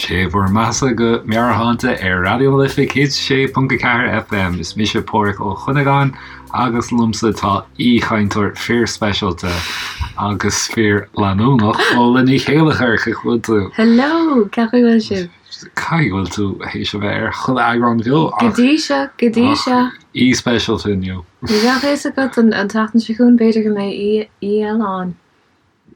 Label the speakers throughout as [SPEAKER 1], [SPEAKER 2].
[SPEAKER 1] Sé bhur mbeathasa go Meabhairshláinte ar Raidió na Life 106.4 FM. Is mise Páraic Ó Cuinneagáin agus liomsa tá aoichainteoir fíorspeisialta agus fíorleanúnach, Fódhla Ní Chéilleachair, cén chaoi a bhfuil tú?
[SPEAKER 2] Hello! Cén chaoi a bhfuil sibh?
[SPEAKER 1] Caithfidh go bhfuil tú théis a bheith ar chuile eagrán bheo
[SPEAKER 2] ach Go dtí seo, go dtí seo.
[SPEAKER 1] Aoi speisialta inniu.
[SPEAKER 2] Ní bheadh a fhios agat an tseachtain seo chugainn, b'fhéidir go mbeidh aoi eile ann.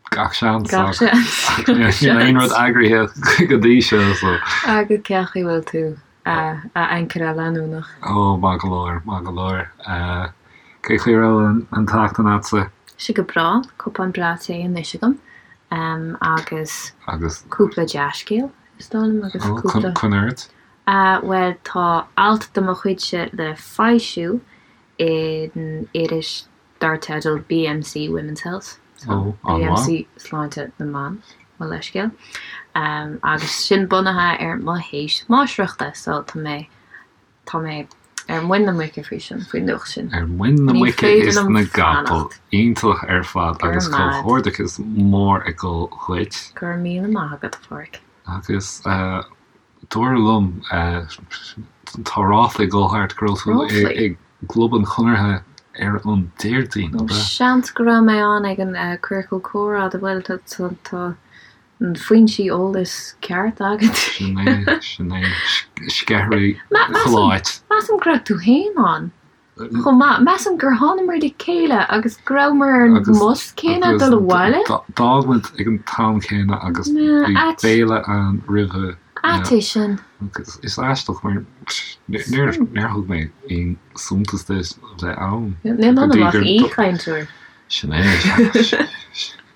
[SPEAKER 1] Gach seans. Gach seans. Níl aon rud eagraithe go dtí seo
[SPEAKER 2] so. Agus cén chaoi a bhfuil tú, a ancaire leanúnach?
[SPEAKER 1] Ó, maith go leor, maith go leor. Cén chaoi a raibh an tseachtain a'dsa?
[SPEAKER 2] Sé go breá, cupán breá tae anois agam agus
[SPEAKER 1] Agus?
[SPEAKER 2] cúpla dea-scéal, is dóigh liom, agus
[SPEAKER 1] cúpla. Coinnigh ort.
[SPEAKER 2] Bhuel, tá alt de mo chuidse le foilsiú in iris dar teideal BMC Women's Health,
[SPEAKER 1] so
[SPEAKER 2] BMC Sláinte na mBan, mo leithscéal, agus sin bunaithe ar mo théis máistreachta, so tá mé, tá mé ar muin na muice faoi sin, faoin nuacht sin.
[SPEAKER 1] Ar muin na muice is na gcapall. Iontach ar fad agus comhghairdeachas mór ag dul dhuit.
[SPEAKER 2] Go raibh míle maith agat, a Pháraic.
[SPEAKER 1] Agus Dúradh liom, tá ráfla ag dul thart go raibh tú i gClub an Chonartha ar an Déardaoin,
[SPEAKER 2] ab ea? Seans go raibh mé ann ag an Ciorcal Comhrá, bhuel, tá na foinsí eolais ceart agat.
[SPEAKER 1] Sin é, sin é. Sceithirí chuile áit.
[SPEAKER 2] Measaim go raibh tú féin ann. Chomh maith, measaim gur thánamar le chéile agus go rabhamar ar an mbus céanna ag dul abhaile.
[SPEAKER 1] D'fhág muid ag an t-am céanna agus bhí béile ann roimhe.
[SPEAKER 2] Ait é sin.
[SPEAKER 1] Agus is aisteach mar níor thug mé aon suntas duit a bheith ann.
[SPEAKER 2] Níl ionam ach aoichainteoir.
[SPEAKER 1] Sin é.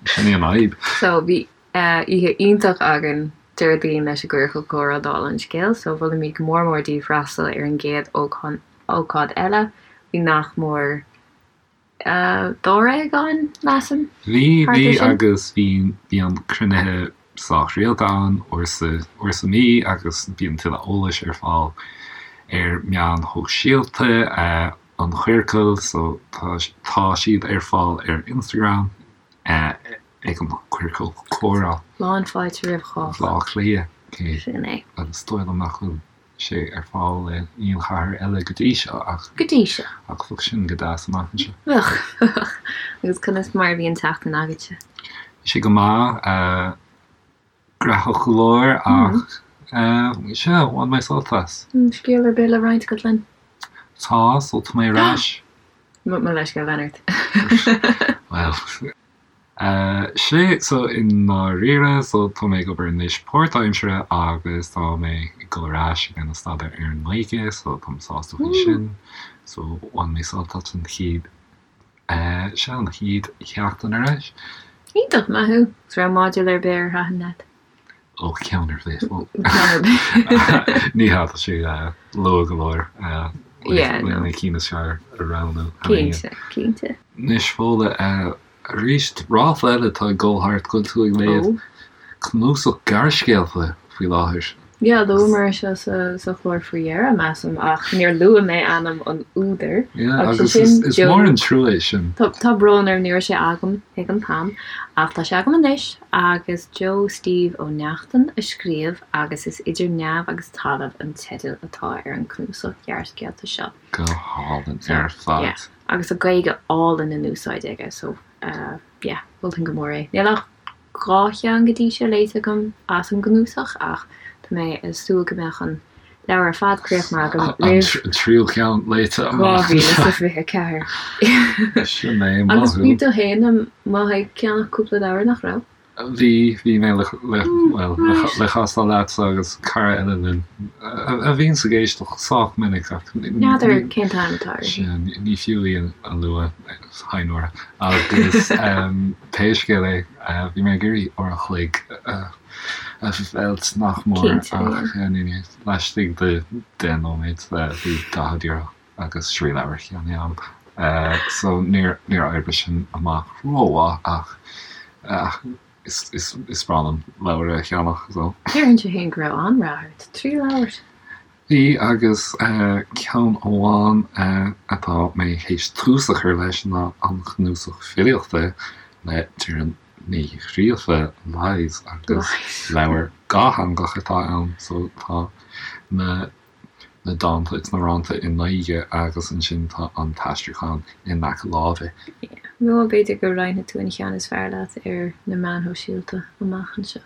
[SPEAKER 1] Sin í an fhadhb.
[SPEAKER 2] So bhí oíche iontach againn Déardaoin leis an gCiorcal Comhrá dála an scéil, so mholfaimid go mór mór daoibh freastal ar an gcéad ócáid eile. Bhí nach mór dáréag ann, measaim,
[SPEAKER 1] Bhí, thart bhí ar sin. agus bhí, bíonn cruinnithe sách rialta ann, uair sa, uair sa mhí agus bíonn tuilleadh eolais ar fáil ar meáin shóisialta an Chiorcail so tá, tá siad ar fáil ar Instagram ag an Ciorcal Comhrá.
[SPEAKER 2] Lán fáilte roimh chách.
[SPEAKER 1] Bhaile Átha Cliath,
[SPEAKER 2] cé Sin é.
[SPEAKER 1] agus is dóigh liom nach bhfuil sé ar fáil in aon chathair eile go dtí seo ach.
[SPEAKER 2] Go dtí seo.
[SPEAKER 1] Ach bheadh sin go deas amach anseo.
[SPEAKER 2] Bheadh, bheadh. Agus conas mar a bhí an tseachtain agatsa?
[SPEAKER 1] Bhí sé go maith. Graitheach go leor ach sea, bhain mé sult as.
[SPEAKER 2] Scéal ar bith le roinnt agat linn?
[SPEAKER 1] Tá, so tá mé ar ais.
[SPEAKER 2] Mo leithscéal, lean ort.
[SPEAKER 1] Bhuel. Sea, so i ndáiríre, so tá mé ag obair anois páirtaimseartha agus tá mé ag dul ar ais ag déanamh staidéar ar an nGaeilge, so táim sásta faoi sin. So bhain mé sult as an chéad, sea, an chéad sheachtain ar ais.
[SPEAKER 2] Iontach, maith thú. Agus raibh modúl ar bith ar thaitin leat?
[SPEAKER 1] Ó, ceann ar bith. Ceann ar bith. Ní hea, tá sé luath go leor le na cinn is fearr a roghnú.
[SPEAKER 2] Cinnte, cinnte.
[SPEAKER 1] Anois, Fódhla, arís, ráfla eile atá ag dul thart go bhfuil tú ag léamh cnuasach gearrscéalta faoi láthair.
[SPEAKER 2] Yeah, luamar é seo sa chlár faoi dheireadh, measaim, ach níor luaigh mé ainm an údair.
[SPEAKER 1] Yeah, agus sin is mór an trua é sin.
[SPEAKER 2] Tá brón orm, ní raibh sé agam ag an t-am, ach tá sé agam anois, agus Joe Steve Ó Neachtain a scríobh agus is Idir Neamh agus Talamh an teideal atá ar an cnuasach gearrscéalta seo.
[SPEAKER 1] Go hálainn ar fad.
[SPEAKER 2] Yeah, agus tá Gaeilge álainn in úsáid aige, so yeah, mholfainn go mór é. Níl ach 2 cheann go dtí seo léite agam as an gcnuasach ach tá mé ag súil go mbeadh an leabhar ar fad críochnaithe agam
[SPEAKER 1] roimh An tríú ceann léite
[SPEAKER 2] amach. 2024.
[SPEAKER 1] Sin é, maith
[SPEAKER 2] Agus bhí tú féin amuigh ag ceannach cúpla leabhar, nach raibh?
[SPEAKER 1] Bhí, bhí mé le, le, bhuel, le castáil leatsa agus cara eile linn a bhíonns ag éisteacht sách minic ach
[SPEAKER 2] N'fheadar cén t-ainm atá uirthi.
[SPEAKER 1] Sea, ní fiú í a lua, hi Nóra. Agus pé scéal é, bhí mé ag iarraidh uair an chloig a mheilt nach mór ach laistigh de 10 nóiméad bhí 40 euro agus trí leabhar ceannaithe agam. So níor oibrigh sin amach rómhaith ach is breá liom leabhair a cheannach
[SPEAKER 2] so. Déarfainnse féin go raibh an-rath ort, 3 leabhar!
[SPEAKER 1] Bhí, agus ceann amháin atá mé théis tús a chur leis ná an cnuasach filíochta le Doireann. Ní Ghríofa, Lies, agus leabhar dhátheangach atá ann so tá na na dánta agus na rannta i nGaeilge agus ansin tá an t-aistriúchán in aice láimhe.
[SPEAKER 2] Nó b'fhéidir go roinnfidh tú an cheann is fearr leat ar na meáin shóisialta amach anseo.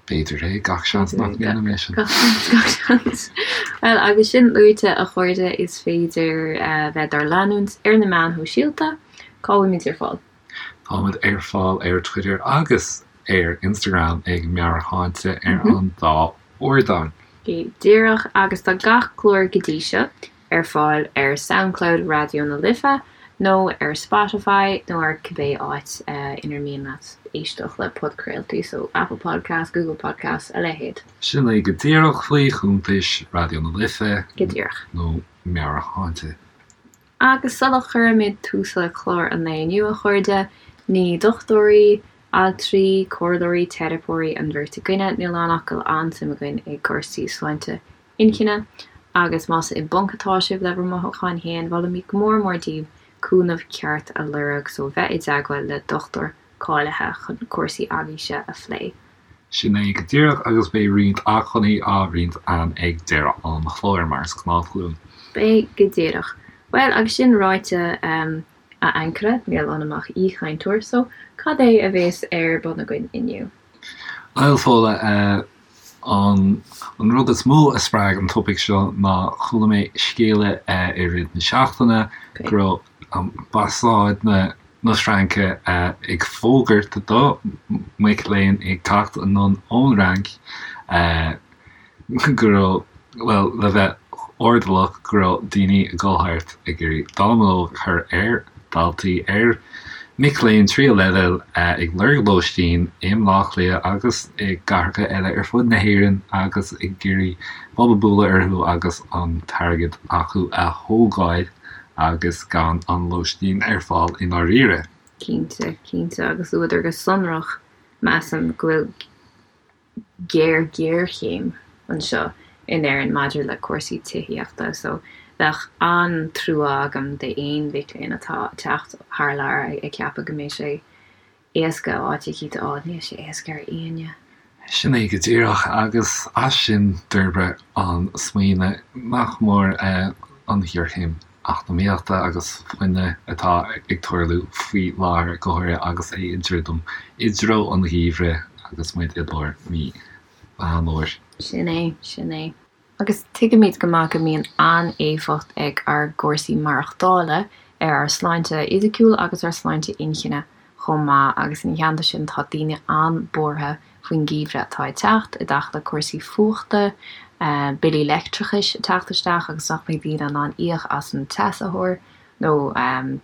[SPEAKER 1] B'fhéidir é, gach seans nach ndéanfaidh mé sin.
[SPEAKER 2] Gach seans, gach seans. Bhuel, agus sin luaite, a chairde, is féidir bheith dár leanúint ar na meáin shóisialta. Cá bhfuilimid ar fáil?
[SPEAKER 1] Táimid ar fáil ar Twitter agus ar Instagram ag Meabhairshláinte ar an dá ardán.
[SPEAKER 2] Go díreach, agus tá gach clár go dtí seo ar fáil ar Soundcloud Raidió na Life nó ar Spotify nó ar cibé áit inar mian leat éisteacht le podchraoltaí, so Apple Podcasts, Google Podcasts, a leithéid.
[SPEAKER 1] Sin é go díreach faoi chuntais Raidió na Life
[SPEAKER 2] Go díreach.
[SPEAKER 1] nó Meabhairshláinte.
[SPEAKER 2] Agus sula gcuirimid tús le clár an lae inniu, a chairde, ní dochtúirí, altraí, comhairleoirí, teiripeoirí an bheirt againne, níl ann ach go bhfuil an-suim againn i gcúrsaí sláinte inchinne, agus más i bponc atá sibh le bhur mothúcháin féin, molaimid go mór mór daoibh cúnamh ceart a lorg, so bheith i dteagmháil le dochtúir cáilithe chun cúrsaí agaibhse a phlé.
[SPEAKER 1] Sin é go díreach, agus beidh roinnt acmhainní á roinnt againn ag deireadh an chláir, mar is gnách linn.
[SPEAKER 2] Beidh, go díreach. Bhuel, agus sin ráite, a ancaire, níl ionam ach aoichainteoir, so cad é a bhéas ar bun againn inniu?
[SPEAKER 1] Bhuel, Fódhla, An rud is mó a spreag an topaic seo ná chuala mé scéala i rith na seachtaine go raibh ambasáid na Fraince ag fógairt do mhic léinn ag teacht anonn ón Fhrainc go raibh, bhuel, le bheith airdeallach, go raibh daoine ag dul thart ag iarraidh dallamullóg a chur ar dhaltaí, ar mhic léinn tríú leibhéal ag lorg lóistín i mBleá Cliath agus i gcathracha eile ar fud na hÉireann agus ag iarraidh bob a bualadh orthu agus an t-airgead acu a thógáil agus gan an lóistín ar fáil i ndáiríre.
[SPEAKER 2] Cinnte, cinnte, agus luadar go sonrach, measaim, go bhfuil géar-ghéarchéim anseo in Éirinn maidir le cúrsaí tithíochta so bheadh an-trua agam d'aon mhic léinn atá ag teacht thar lear ag ceapadh go mbeidh sé éasca áit eicínt a fháil. Níl sé éasca ar éinne.
[SPEAKER 1] Sin é go díreach agus as sin d'fhorbair an smaoineamh nach mór an ghéarchéim eacnamaíochta agus fuinnimh atá ag tarlú faoi láthair, go háirithe agus é ag druidim i dtreo an gheimhridh agus muid i lár mí Mheán Fhómhair.
[SPEAKER 2] Sin é, sin é. Agus tuigimid go maith go mbíonn an-éifeacht ag ár gcúrsaí maireachtála ar ár sláinte fhisiciúil agus ár sláinte inchinne chomh maith agus ina theannta sin tá daoine an-bhuartha faoin gheimhreadh atá ag teacht, i dtaca le cúrsaí fuachta, billí leictreachais ag teacht isteach agus nach mbeidh daoine in ann íoc as an teasaitheoir nó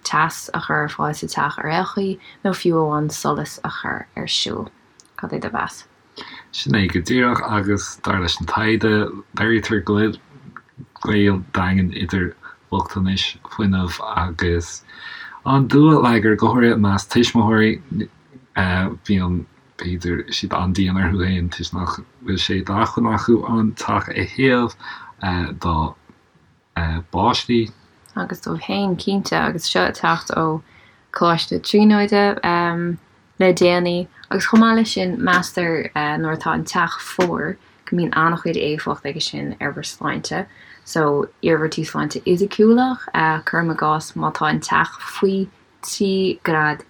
[SPEAKER 2] teas a chur ar fáil sa teach ar aon chaoi nó fiú amháin solas a chur ar siúl. Cad é do mheas?
[SPEAKER 1] Sin é go díreach agus dar leis an taighde, léirítear go bhfuil gaol daingean idir bochtanais fuinnimh agus an dúlagar, go háirithe i measc tuismitheoirí. Bíonn, b'fhéidir, siad an-dian orthu féin toisc nach bhfuil sé d'acmhainn acu an teach a théamh dá bpáistí.
[SPEAKER 2] Agus dóibh féin, cinnte, agus seo ag teacht ó Choláiste Tríonóide le déanaí. Agus chomh maith leis sin, meastar nuair atá an teach fuar go mbíonn an-chuid éifeacht aige sin ar bhur sláinte. So, iarmhairtí sláinte fhisiciúla, cuirim i gcás, má tá an teach faoi 13 grád,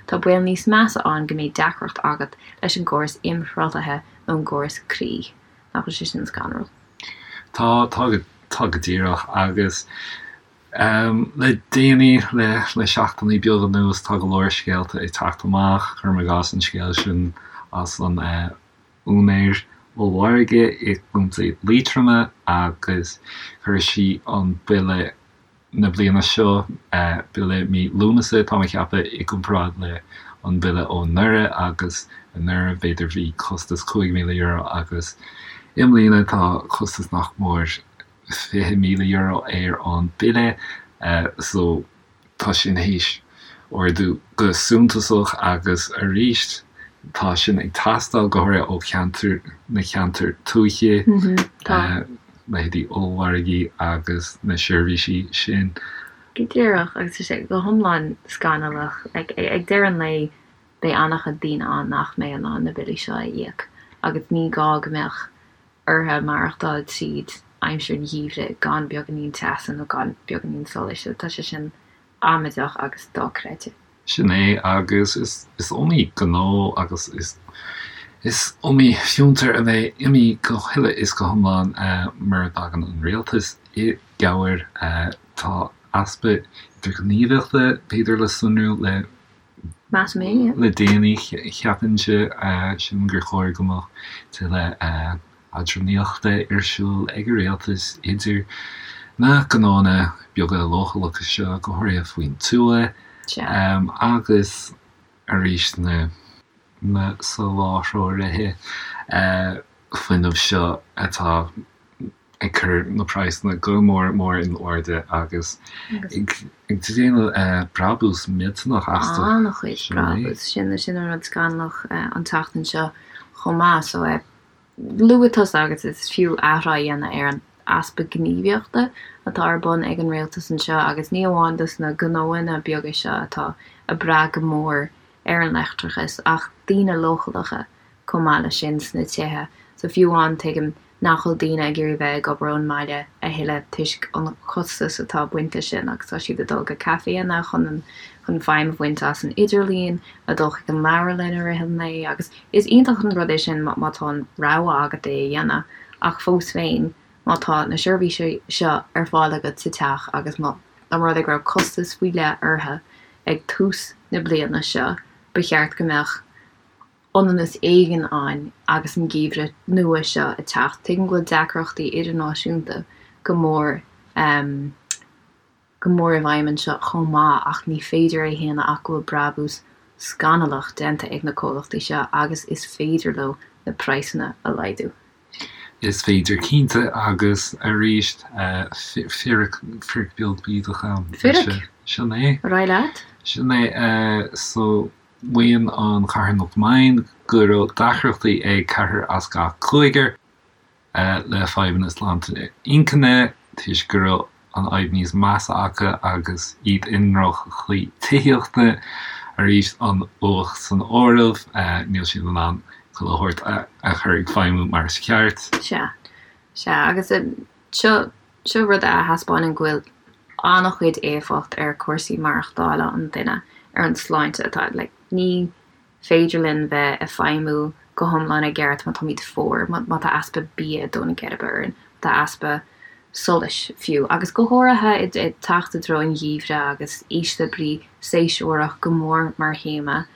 [SPEAKER 2] tá baol níos measa ann go mbeidh deacracht agat leis an gcóras imshruthlaithe nó an gcóras croí. Nach bhfuil sé sin scanrúil?
[SPEAKER 1] Tá, tá go, tá go díreach. Agus le déanaí, le, le seachtainí beaga anuas, tá go leor scéalta ag teacht amach, cuirim i gcás an scéal sin as an úinéir ollmhargaidh i gContae Liatroma agus chuir sí an bille na bliana seo, bille mí Lúnasa, tá mé ag ceapadh, i gcomparáid le an bille ó anuraidh agus anuraidh b'fhéidir bhí costas €5,000 agus i mbliana tá costas nach mór €20,000 ar an bille so tá sin théis ardú go suntasach agus arís tá sin ag teastáil go háirithe ó cheantar na ceantair tuaithe. Tá. leithéidí ollmhargaí agus na seirbhísí sin.
[SPEAKER 2] Go díreach, agus tá sé go hiomlán scannalach. Ag deireadh an lae, Beidh an-chuid daoine ann nach mbeidh in ann na billí seo a íoc agus ní gá go mbeadh orthu maireachtáil tríd aimsir an gheimhridh gan beagáinín teasa nó gan beagáinín solais. So tá sé sin amaideach agus dochreidte.
[SPEAKER 1] Sin é, agus is iomaí gnó agus is iomaí fiontar a bheidh imithe go huile is go hiomlán mura dtagann an rialtas i gcabhair. Tá easpa idirghníomhaíochta, b'fhéidir, le sonrú le
[SPEAKER 2] Measaim é, yeah.
[SPEAKER 1] Le déanaí, cheapfainnse, sílim gur chóir go mbeadh tuilleadh eadránaíochta ar siúl ag an rialtas idir na gnóanna beaga leochaileacha seo, go háirithe faoin tuath, agus arís na na soláthróirí fuinnimh seo atá ag cur na praghsanna go mór mór in airde agus ag déanamh brabús millteanach astu.
[SPEAKER 2] An-chuid brabús. Sin sin an rud scannalach an tseachtain seo chomh maith. So luaigh tusa agus is fiú athrá a dhéanamh ar an easpa gníomhaíochta atá ar bun ag an rialtas anseo agus ní amháin dos na gnóanna beaga seo atá ag brath go mór ar an leictreachas ach daoine leochaileacha chomh maith leis sin sna tithe. So fiú amháin tuigim nach bhfuil daoine ag iarraidh bheith ag obair ón mbaile a thuilleadh toisc an costas atá baint leis sin agus tá siad ag dul go caiféanna chun an chun feidhm a bhaint as an idirlíon, ag dul chuig an leabharlann i rith an lae agus is iontach an rud é sin má tá an rogha agat é a dhéanamh ach fós féin má tá na seirbhísí seo ar fáil agat sa teach agus má dá mba rud é go raibh costas faoi leith orthu ag tús na bliana seo ba cheart go mbeadh ionannas éigin ann agus an geimhreadh nua seo ag teacht. Tuigim go bhfuil deacrachtaí idirnáisiúnta go mór go mór i bhfeidhm anseo chomh maith ach ní féidir é a shéanadh ach go bhfuil brabús scannalach déanta ag na comhlachtaí seo agus is féidir leo na praghsanna a laghdú.
[SPEAKER 1] Is féidir cinnte agus arís fíric beag bídeach ann.
[SPEAKER 2] Fíric?
[SPEAKER 1] Sin é.
[SPEAKER 2] Ar aghaidh leat.
[SPEAKER 1] Sin é. So. Maíonn an charthanacht Mind go raibh deacrachtaí ag ceathrar as gach cúigear le fadhbanna sláinte inchinne toisc go raibh an fhadhb níos measa acu agus iad i ndroch-chaoi tithíochta. Arís, an fhuacht san áireamh, níl siad in ann chuile shórt a chur ag feidhmiú mar is ceart.
[SPEAKER 2] Sea, sea, agus seo Seo rud a thaispeánann go bhfuil an-chuid éifeacht ar chúrsaí maireachtála an duine ar an sláinte atá like ní féidir linn bheith ag feidhmiú go hiomlán i gceart má táimid fuar, má tá easpa bia ag dó na geirbe orainn, má tá easpa solais fiú, agus go háirithe ag teacht i dtreo an gheimhridh agus ísle brí séasúrach go mór mar théama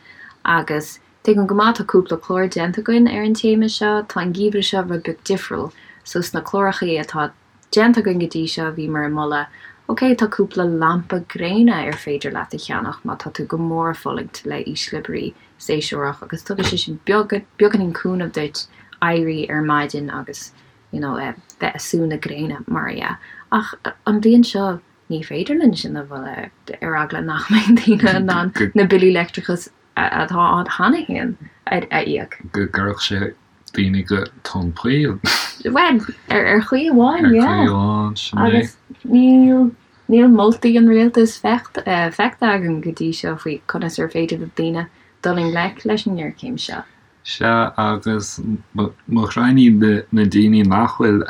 [SPEAKER 2] agus Tuigim go maith, tá cúpla clár déanta againn ar an téama seo. Tá an geimhreadh seo rud beag difriúil. So sna clárachaí atá déanta againn go dtí seo bhíomar ag moladh, ok, tá cúpla lampa gréine ar féidir leat a cheannach má tá tú go mór ag fulaingt le ísle brí séasúrach agus tugann sé sin beagáinín cúnamh duit éirí ar maidin agus you know bheith ag sú na gréine mar a dhea. Ach an bhliain seo ní féidir linn sin a mholadh ar eagla nach mbeidh daoine in ann na billí leictreachais atá ann cheana féin a íoc.
[SPEAKER 1] Go gcuirfeadh sé daoine go tóin poill.
[SPEAKER 2] Bhuel, ar chaoi amháin,
[SPEAKER 1] yeah. Ar chaoi amháin, sin
[SPEAKER 2] é. Agus níl, níl moltaí an rialtais feicthe agam go dtí seo faoi conas ar féidir le daoine dul i ngleic leis an ngéarchéim seo.
[SPEAKER 1] Sea, agus mo ghraidhin na daoine nach bhfuil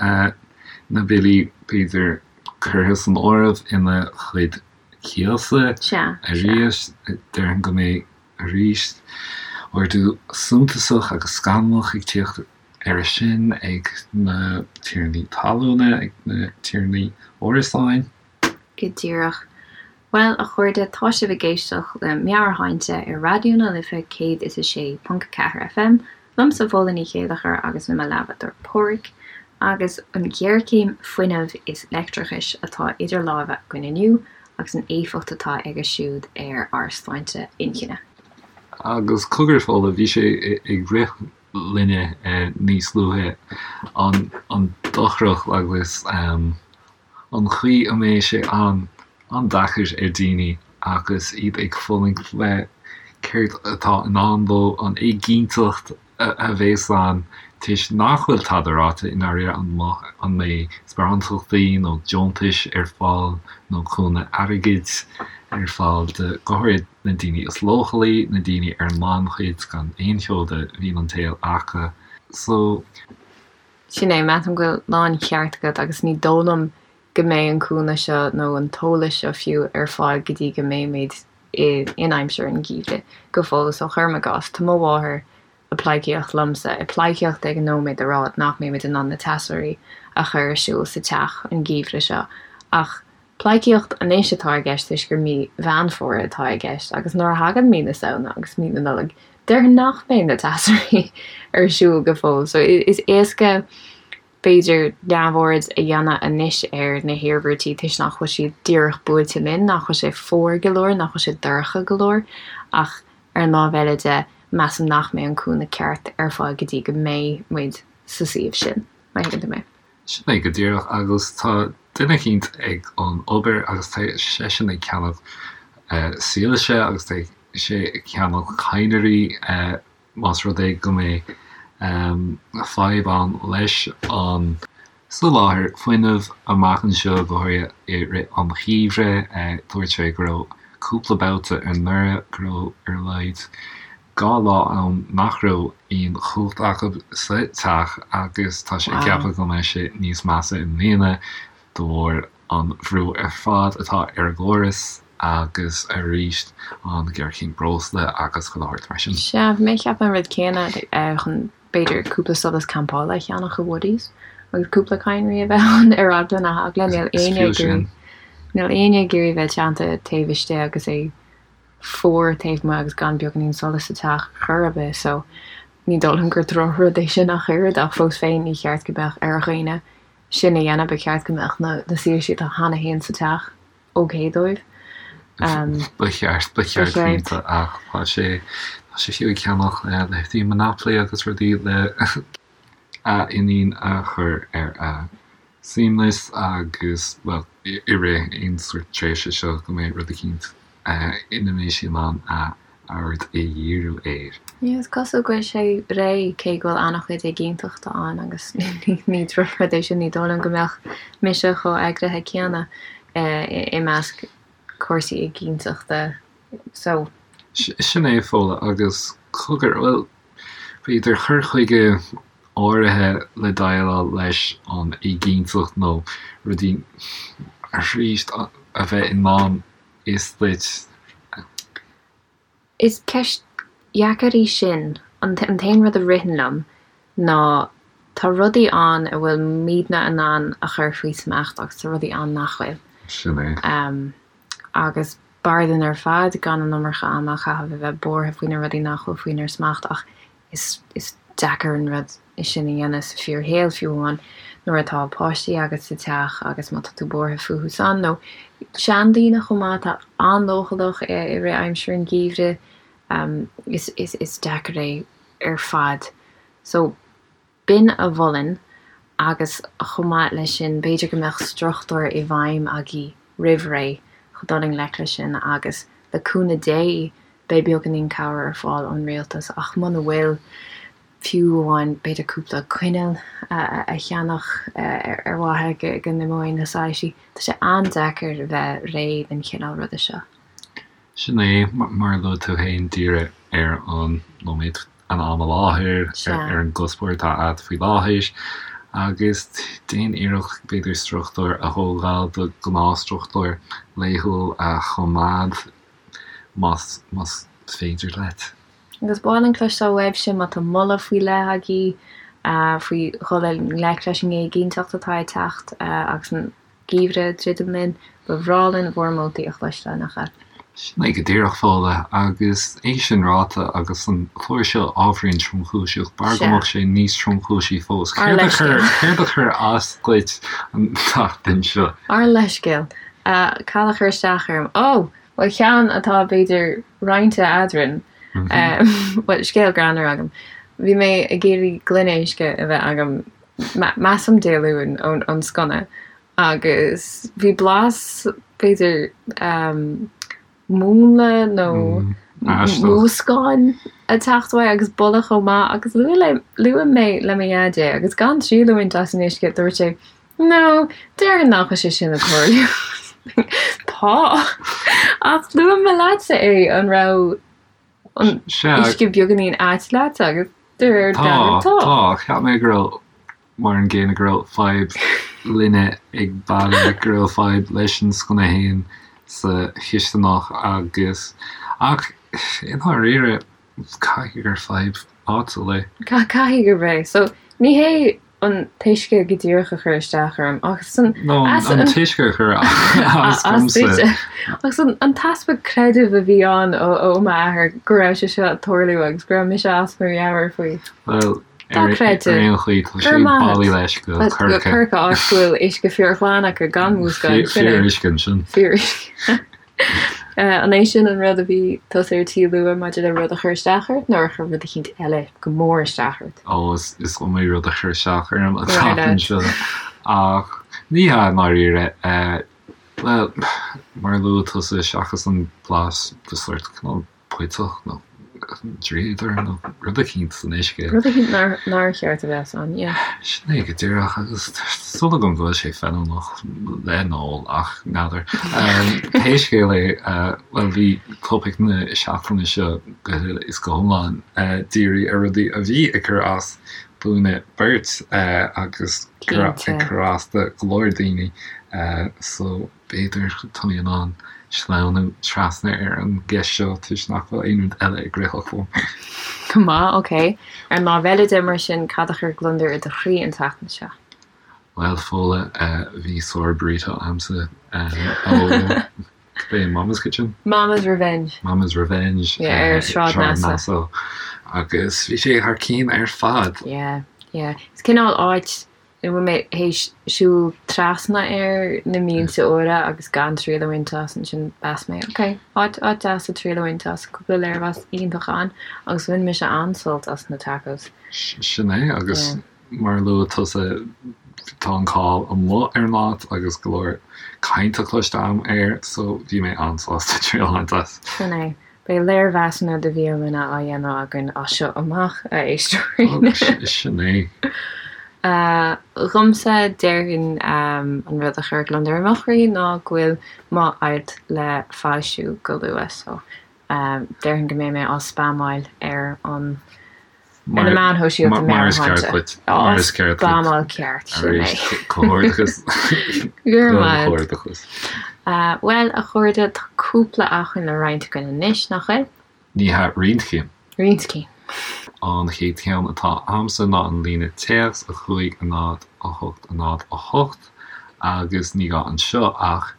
[SPEAKER 1] na billí, b'fhéidir, curtha san áireamh ina chuid cíosa arís. Déarfainn go mbeidh arís ardú suntasach agus scannalach ag tíocht air sin ag na tiarnaí talúna, ag na tiarnaí árasáin.
[SPEAKER 2] Go díreach. Bhuel, a chairde, tá sibh ag éisteacht le Meabhairshláinte ar Raidió na Life 106.4 FM, liomsa Fódhla Ní Chéilleachair agus le mo leathbhádóir Páraic, agus an ghéarchéim fuinnimh is leictreachais atá idir lámha againn inniu agus an éifeacht atá aige siúd ar ár sláinte inchinne.
[SPEAKER 1] Agus cogar, Fódhla, bhí sé ag rith linne níos luaithe, an dochrach agus an chaoi a mbeidh sé an-deacair ar daoine agus iad ag fulaingt le céard atá i ndán dóibh, an éiginnteacht a bheas ann toisc nach bhfuil tada ráite i ndáiríre, an mbeidh sparántachtaí nó deontais ar fáil nó cúnamh airgid. ar fáil do, go háirid na daoine is leochailí, na daoine ar an ngannchuid gan aon cheo de mhian an tsaoil acu. So.
[SPEAKER 2] Sin é, measaim go bhfuil láncheart agat agus ní dóigh liom go mbeidh an cúnamh seo nó an t-eolas seo fiú ar fáil go dtí go mbeimid in aimsir an gheimhridh go fóill. So cuirim i gcás, tá mo mháthair ag pleidhcíocht liomsa, ag pleidhcíocht ag an nóiméad a rá nach mbeimid in ann na teasóirí a chur ar siúl sa teach an geimhreadh seo ach pleidhcíocht anois atá i gceist toisc gur mí Mheán Fómhair atá i gceist agus nuair a thagann mí na Samhna agus mí na Nollag déarfainn nach mbeidh na teasóirí ar siúl go fóill so is éasca b'fhéidir neamhaird a dhéanamh anois ar na hiarmhairtí toisc nach bhfuil siad díreach buailte linn, nach bhfuil sé fuar go leor, nach bhfuil sé dorcha go leor ach ar an lámh eile de, measaim nach mbeidh an cúnamh ceart ar fáil go dtí go mbeidh muid sa suíomh sin, má thuigeann tú mé.
[SPEAKER 1] Sin é go díreach agus tá duine eicínt ag an obair agus tá seisean ag ceannach soilse agus tá sé ag ceannach cadhnraí más rud é go mbeidh fadhb ann leis an soláthar fuinnimh amach anseo, go háirithe i rith an gheimhridh. Dúirt sé go raibh cúpla babhta anuraidh go raibh ar a laghad 2 lá ann nach raibh aon chumhacht acu sa teach agus tá sé ag ceapadh go mbeidh sé níos measa i mbliana de bharr an bhrú ar fad atá ar an gcóras agus arís an ghéarchéim breosla agus chuile shórt mar sin.
[SPEAKER 2] Sea, bhí mé ag ceapadh an rud céanna chun b'fhéidir cúpla solas campála a cheannach i Woodies agus cúpla cadhnraí a bheith ann ar eagla na heagla. Níl éinne ag iarraidh níl éinne ag iarraidh bheith teannta taobh istigh agus é fuar taobh amuigh agus gan beagáinín solais sa teach chor ar bith so ní dóigh liom gur drochrud é sin ach oiread ach fós féin ní cheart go mbeadh ar dhaoine sin a dhéanamh, ba cheart go mbeadh na soilsí atá cheana féin sa teach ok dóibh.
[SPEAKER 1] Ba cheart, ba cheart cinnte ach tá sé, tá sé fiú ag ceannach leithéidí Monopoly agus rudaí le a iníon a chur ar a suaimhneas agus, bhuel, i rith aon sórt tréimhse seo go mbeidh rud eicínt ina mbeidh sí in ann a aird a dhíriú air.
[SPEAKER 2] Yeah, is cosúil go bhfuil sé réidh, cé go bhfuil an-chuid éiginnteachta ann agus ní drochrud é sin, ní dóigh liom go mbeadh mise chomh eagraithe céanna i measc cúrsaí éiginnteachta so.
[SPEAKER 1] Sin é, Fódhla, agus cogar, bhuel, b'fhéidir cur chuige áirithe le déileáil leis an éiginnteacht nó rudaí arís a bheith i ndán is duit.
[SPEAKER 2] Is ceist dheacair í sin. An t-aon rud a ritheann liom ná tá rudaí ann a bhfuil muidne in ann a chur faoi smacht agus tá rudaí ann nach bhfuil.
[SPEAKER 1] Sin é.
[SPEAKER 2] Agus b'fhearr dúinn ar fad gan an iomarca ama a chaitheamh a bheith buartha faoi na rudaí nach bhfuil faoinár smacht ach Is deacair an rud é sin a dhéanamh sa fíorshaol, fiú amháin nuair atá páistí agat sa teach agus má tá tú buartha fúthu san, nó seandaoine chomh maith atá an-leochaileach i rith aimsir an gheimhridh, is deacair é ar fad. So, b'in a mholfainn agus chomh maith leis sin b'fhéidir go mbeadh struchtúr i bhfeidhm agaibh roimh ré chun dul i ngleic leis sin agus le cúnamh Dé beidh beagáinín cabhair ar fáil ón rialtas ach muna bhfuil, fiú amháin b'fhéidir cúpla coinneal a cheannach ar mhaithe go n-imeoidh na soilsí. Tá sé an-deacair a bheith réidh don chineál ruda seo.
[SPEAKER 1] Sin é, mar a luaigh tú féin, díriú ar an nóiméad, an am i láthair, ar an gcuspóir atá agat faoi láthair agus déan iarracht b'fhéidir struchtúr a thógáil, do ghnáthstruchtúr laethúil a choimeád. más más féidir leat.
[SPEAKER 2] Agus ba mhaith linn cloisteáil uaibhse má tá moladh faoi leith agaibh faoi dhul i ngleic leis an éiginnteacht atá ag teacht agus an geimhreadh ag druidim linn. Ba bhreá linn bhur moltaí a chloisteáil, nach ea?
[SPEAKER 1] Sin é go díreach, Fódhla, agus é sin ráite, agus an clár seo ábhairín tromchúiseach, b'fhearr go mbeadh sé níos tromchúisí fós. Céard a chuir, céard a chuir as duit an tseachtain seo?
[SPEAKER 2] Ár leithscéal. Cad a chuir isteach orm? Ó! Bhuel, ceann atá, b'fhéidir, roinnte eadrainn. Bhuel, scéal greannmhar agam. Bhí mé ag iarraidh gloine uisce a bheith agam, measaim Dé Luain, ón sconna agus bhí blas, b'fhéidir, múnla nó múscáin ag teacht uaidh agus boladh chomh maith agus luaigh mé le mo dhaid é agus gan triail a bhaint as an uisce, dúirt sé, No, déarfainn nach bhfuil sé sin ag tarlú. Tá. Tá! Ach luaigh mé leatsa é, an raibh an uisce beagáinín ait leat agus de réir
[SPEAKER 1] dealraimh tá. Tá, tá. Cheap mé go raibh mar an gcéanna go raibh fadhb linne ag baile, go raibh fadhb leis an sconna fhéin sa chisteanach agus ach i ndáiríre caithfidh gur fadhb áitiúil é.
[SPEAKER 2] Caithfidh gurb é. So ní hé an t-uisce go díreach a chuir isteach orm ach
[SPEAKER 1] san No, an t-uisce a chuir as
[SPEAKER 2] domsa. Ach san an t-easpa creidimh a bhí ann ó m'athair go raibh sé seo ag tarlú agus go raibh mise as mo mheabhair faoi.
[SPEAKER 1] Well, ar aon chaoi, tá sé bailí leis go
[SPEAKER 2] Corcaigh. Corcaigh, áit go bhfuil uisce fíorghlan acu gan mhúscáil.
[SPEAKER 1] Fíoruisce ansin.
[SPEAKER 2] Fíoruisce. An é sin an rud a bhí tusa ar tí a lua maidir le rud a chur isteach ort nó ar chuir rud eicínt eile go mór isteach ort?
[SPEAKER 1] Ó, is iomaí rud a chuir isteach orm an tseachtain seo. Ach ní hea i ndáiríre. Bhuel, mar a luaigh tusa, seachas an blas de sórt cineál puiteach nó dríodar nó rud eicínt san uisce.
[SPEAKER 2] Rud eicínt nár cheart a bheith ann, yeah.
[SPEAKER 1] Sin é go díreach agus tá súil agam go bhfuil sé feiliúnach le n-ól ach n'fheadar. Pé scéal é, bhuel bhí topaic na seachtaine seo go huile is go hiomlán dírithe ar rudaí a bhí ag cur as dúinne beirt agus ag cur as do go leor daoine so B'fhéidir tá mé in ann sleamhnú trasna ar an gceist seo toisc nach bhfuil aon rud eile ag rith liom.
[SPEAKER 2] Go maith, ok. Ar an lámh eile de, mar sin, cad a chuir gliondar i do chroí an tseachtain seo?
[SPEAKER 1] Bhuel, Fódhla, bhí sár burrito a'msa ó cibé Mama's Kitchen?
[SPEAKER 2] Mama's Revenge.
[SPEAKER 1] Mama's Revenge.
[SPEAKER 2] Yeah, ar Sráid Nassau.
[SPEAKER 1] Agus bhí sé thar cinn ar fad.
[SPEAKER 2] Yeah, yeah. Is cineál áit ina bhfuil mé théis siúl trasna air na mílte uaire agus gan triail a bhaint as, ansin mheas mé, ok, áit, áit deas le triail a bhaint as, cúpla léirmheas iontach ann agus bhain mise an-sult as na tacos.
[SPEAKER 1] Sin é, agus mar a luaigh tusa, tá an cáil amuigh ar an áit agus go leor cainte cloiste agam air, so bhí mé an-sásta triail a bhaint as.
[SPEAKER 2] Sin é. Beidh léirmheasanna de bhialanna á dhéanamh againn as seo amach, a éisteoirí.
[SPEAKER 1] Sin é.
[SPEAKER 2] Dhomsa, déarfainn an rud a chuir gliondar i mo chroí ná go bhfuil m'alt le foilsiú go luath, so déarfainn go mbeidh mé á spamáil ar an Ar na meáin shóisialta
[SPEAKER 1] Mar is ceart duit. Mar is
[SPEAKER 2] ceart duit. Spamáil ceart,
[SPEAKER 1] sin é. Arís, comhghairdeachas.
[SPEAKER 2] Go raibh maith agat. Comhghairdeachas. Bhuel, a chairde, tá cúpla acmhainn le roinnt againn anois, nach bhfuil?
[SPEAKER 1] Ní hea, roinnt cinn.
[SPEAKER 2] Roinnt cinn.
[SPEAKER 1] An chéad cheann atá a'msa ná an líne téacs, 5 0 8 0 8, agus ní gá anseo ach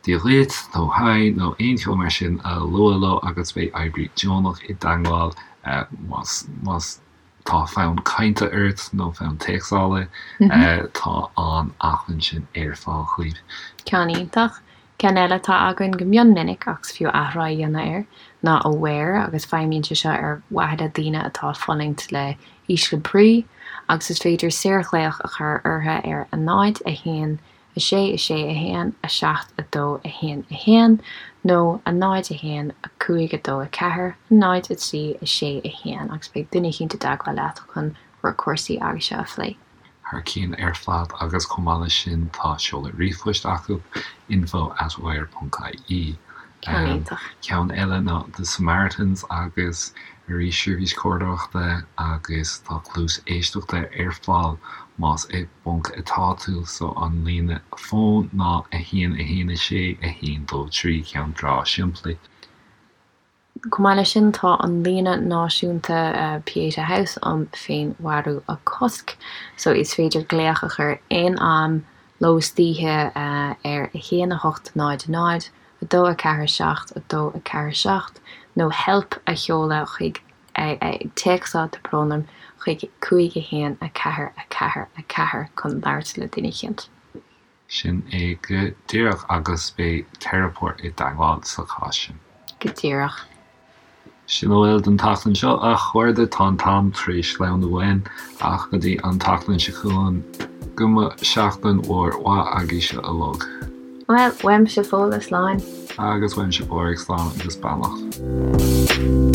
[SPEAKER 1] Dia dhuit nó Haigh nó aon cheo mar sin a lua leo agus beidh oibrí deonach i dteangmháil más más tá fonn cainte ort nó fonn téacsála tá an acmhainn sin ar fáil dhaoibh.
[SPEAKER 2] Ceann iontach. Ceann eile atá againn go mion minic ach is fiú athrá a dhéanamh air ná Aware agus feidhmíonn sé seo ar mhaithe le daoine atá ag fulaingt le ísle brí agus is féidir saorghlaoch a chur orthu ar 0, 1, 6 6 1 7 2 1 1 nó 0 1 5 2 4 0 3 6 1 agus beidh duine eicínt i dteagmháil leat chun bhur cúrsaí agaibhse a phlé.
[SPEAKER 1] Thar cinn ar fad agus chomh maith leis sin tá seoladh ríomhphoist acu, info at aware ponc ie.
[SPEAKER 2] Ceann iontach.
[SPEAKER 1] Ceann eile ná The Samaritans agus arís seirbhís comhairleoireachta agus tá cluas éisteachta ar fáil más i bponc atá tú so an líne fóin ná 1 1 6 1 2 3 ceann breá simplí.
[SPEAKER 2] Chomh maith leis sin tá an líne náisiúnta Pieta House um féinmharú a chosc so is féidir glaoch a chur aon am ló is d'oíche ar 1 8 0 0 2 4 7 2 4 7 nó help a sheoladh chuig ag téacsáil tá brón orm, chuig 5 1 4 4 4 chun labhairt le duine eicínt.
[SPEAKER 1] Sin é go díreach agus beidh teiripeoir i dteagmháil sa chás sin.
[SPEAKER 2] Go díreach.
[SPEAKER 1] Sin a bhfuil don tseachtain seo, a chairde. Tá an t-am tar éis sleamhnú uainn, ach go dtí an tseachtain seo chugainn, go mba seachtain mhór mhaith agaibhse uilig.
[SPEAKER 2] Bhuel, uaimse Fódhla, slán.
[SPEAKER 1] Agus uaimse Pádraig, slán agus beannacht.